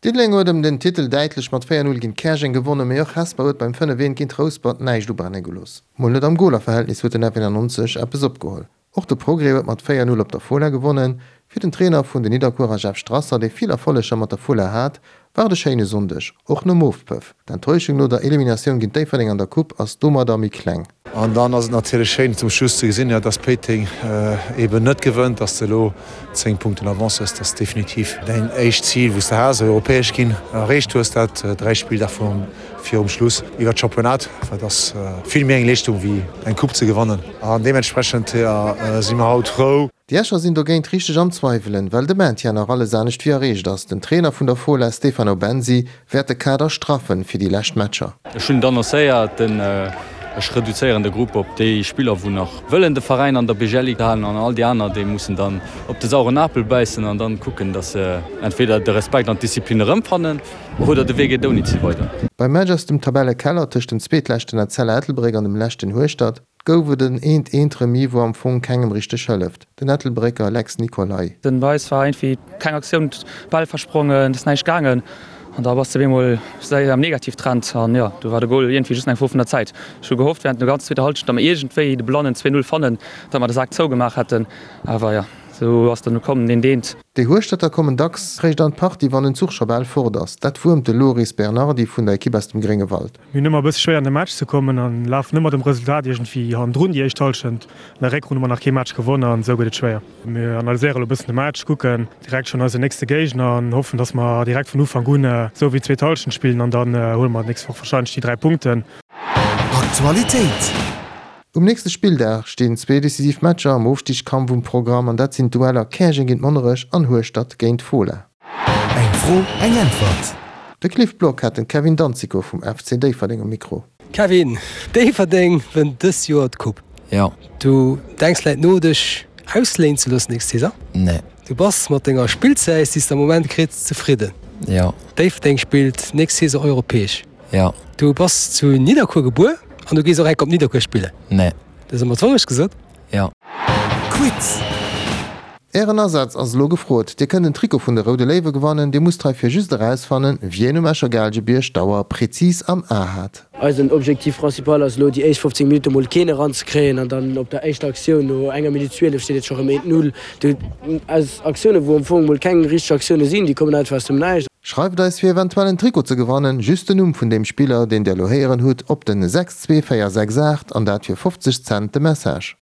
Diddeleng huet ëm den Titel däitlech mat 4, 0 géint Käerjeng gewonnen, mee och Hesper huet beim 5, 1 géint Rouspert näischt ubrenne gelooss. Mol net am Golerverhältnis huet den F91 eppes opgeholl. Och de Progrès huet mat 4, 0 op der Fola gewonnen. Fir den Trainer vun den Nidderkuerer Jeff Strasser, dee vill Erfolleger mat der Fola hat, war et e schéine Sonndeg, och nom Ofpëff. D'Enttäuschung no der Eliminatioun géint Déifferdeng an der Coupe ass domadder méi kleng. An dann ass et natierlech schéin zum Schluss ze gesinn, dass Péiteng eeben net gewënnt, dass de elo 10 Punkten Avance hues. Dat ass definitiv däin éischt Zil, wou s de has, europäesch ginn, erreecht hues, dat 3 Spilldag virum Schluss iwwer d'Championnat. Dat ass vill méi eng Leeschtung wéi eng Coupe ze gewannen an deementsprechend si mer haut frou. Déi Escher sinn dogéint richteg am Zweiwelen, well de Maintien nach alles anescht wéi erreecht ass. Den Trainer vun der Fola, Stefano Bensi, wäert de Kader straffen fir déi lescht Matcher. Ech hunn et annoncéiert, den ech reduzéieren de Grupp op déi Spiller wou nach wëllen de Veräin an der BGL-Ligue halen an all déi aner déi mussen dann op de sauren Apel bäissen an dann kucken, datt se entweder de Respekt an d'Disziplin erëmfannen oder de Wee geet ouni si weider. Beim Match aus dem Tabellekeller tëscht dem zweetleschten Etzella Ettelbréck an dem leschten Hueschtert Gouf et en eent eent Remis wou am Fong kengem richteg hëlleft, den Ettelbrécker Lex Nicolay. Den Weis war iergendwéi keng Aktioun, Bäll versprongen, et ass näischt gaangen an da bass de op eemol séier am Negativtrend an jo, du war de Gol iergendwéi just eng Fro vun der Zäit. Ech hu gehofft während der ganzer zweeter Halschent, datt mer iergendwéi de blannen 2, 0 fannen, datt mer de Sak zougemaach hätten, awer jo, esou ass dann komm deen deent. Déi Hueschterter kommen dacks réischt an d'Partie, wann den Zuch scho bal fort ass. Dat wuermt de Loris Bernardi vun der Ekipp aus dem Gréngewald. Mir hunn ëmmer e bësse schwéier an de Match ze kommen an lafen ëmmer dem Resultat iergendwéi hannendrun déi éischt Hallschent. An der Réckrunn hu mer nach kee Match gewonn an esou gëtt et schwéier. Mir analyséiere lo e bëssen de Match, kucken direkt schonn eisen nächste Géigner an hoffen, dass mer direkt vun Ufank un esou wéi d'zweet Hallschent spillen an dann huele mer d'nächst Woch warscheinlech déi 3 Punkten. Aktualitéit. Um nächste Spilldag stinn zwee decisiv Matcher am Ofstigskampf um Programm an dat sinn d'Dueller Käerjeng géint Monnerech an Hueschtert géint Fola. Eng Fro, eng Äntwert. De Cliff Block hat den Kevin Danzico vum FC Déifferdeng um Mikro. Kevin, Déifferdeng wënnt dës Joer d'Coupe. Jo. Du denks vläit no dech ausléinen ze loossen nächst Saison? Nee. Du bass mat denger Spillzäit déi s de am Moment kritt zefridden? Jo. Déifferdeng spillt nächst Saison europäesch? Jo. Du bass zu Nidderkuer gebuer an du gees och enk op Nidderkuer spillen? Nee. Dat ass ëmmer d'Wourecht gesot? Jo. Quiz. Ären Asaz ass elo gefrot. Dir kënnt en Trikot vun de Roude Léiwe gewannen. Dir musst heifir just erausfannen, wien um Escher Gaalgebierg d'Auer prezis am A hat. Eisen Objectif principal ass elo déi éischt 15 Minutte mol keen eranzekréien an dann op der éischter Aktioun no enger Minutt 12 steet et scho rëm 1, 0. Do aus Aktioune wou am Fong mol keng richteg Aktioune sinn, déi kommen einfach aus dem Näischt. Schreift eis fir eventuell en Trikot ze gewannen just den Numm vun deem Spiller deen der elo héieren hutt op den 62468 an dat fir 50 Cent de Message.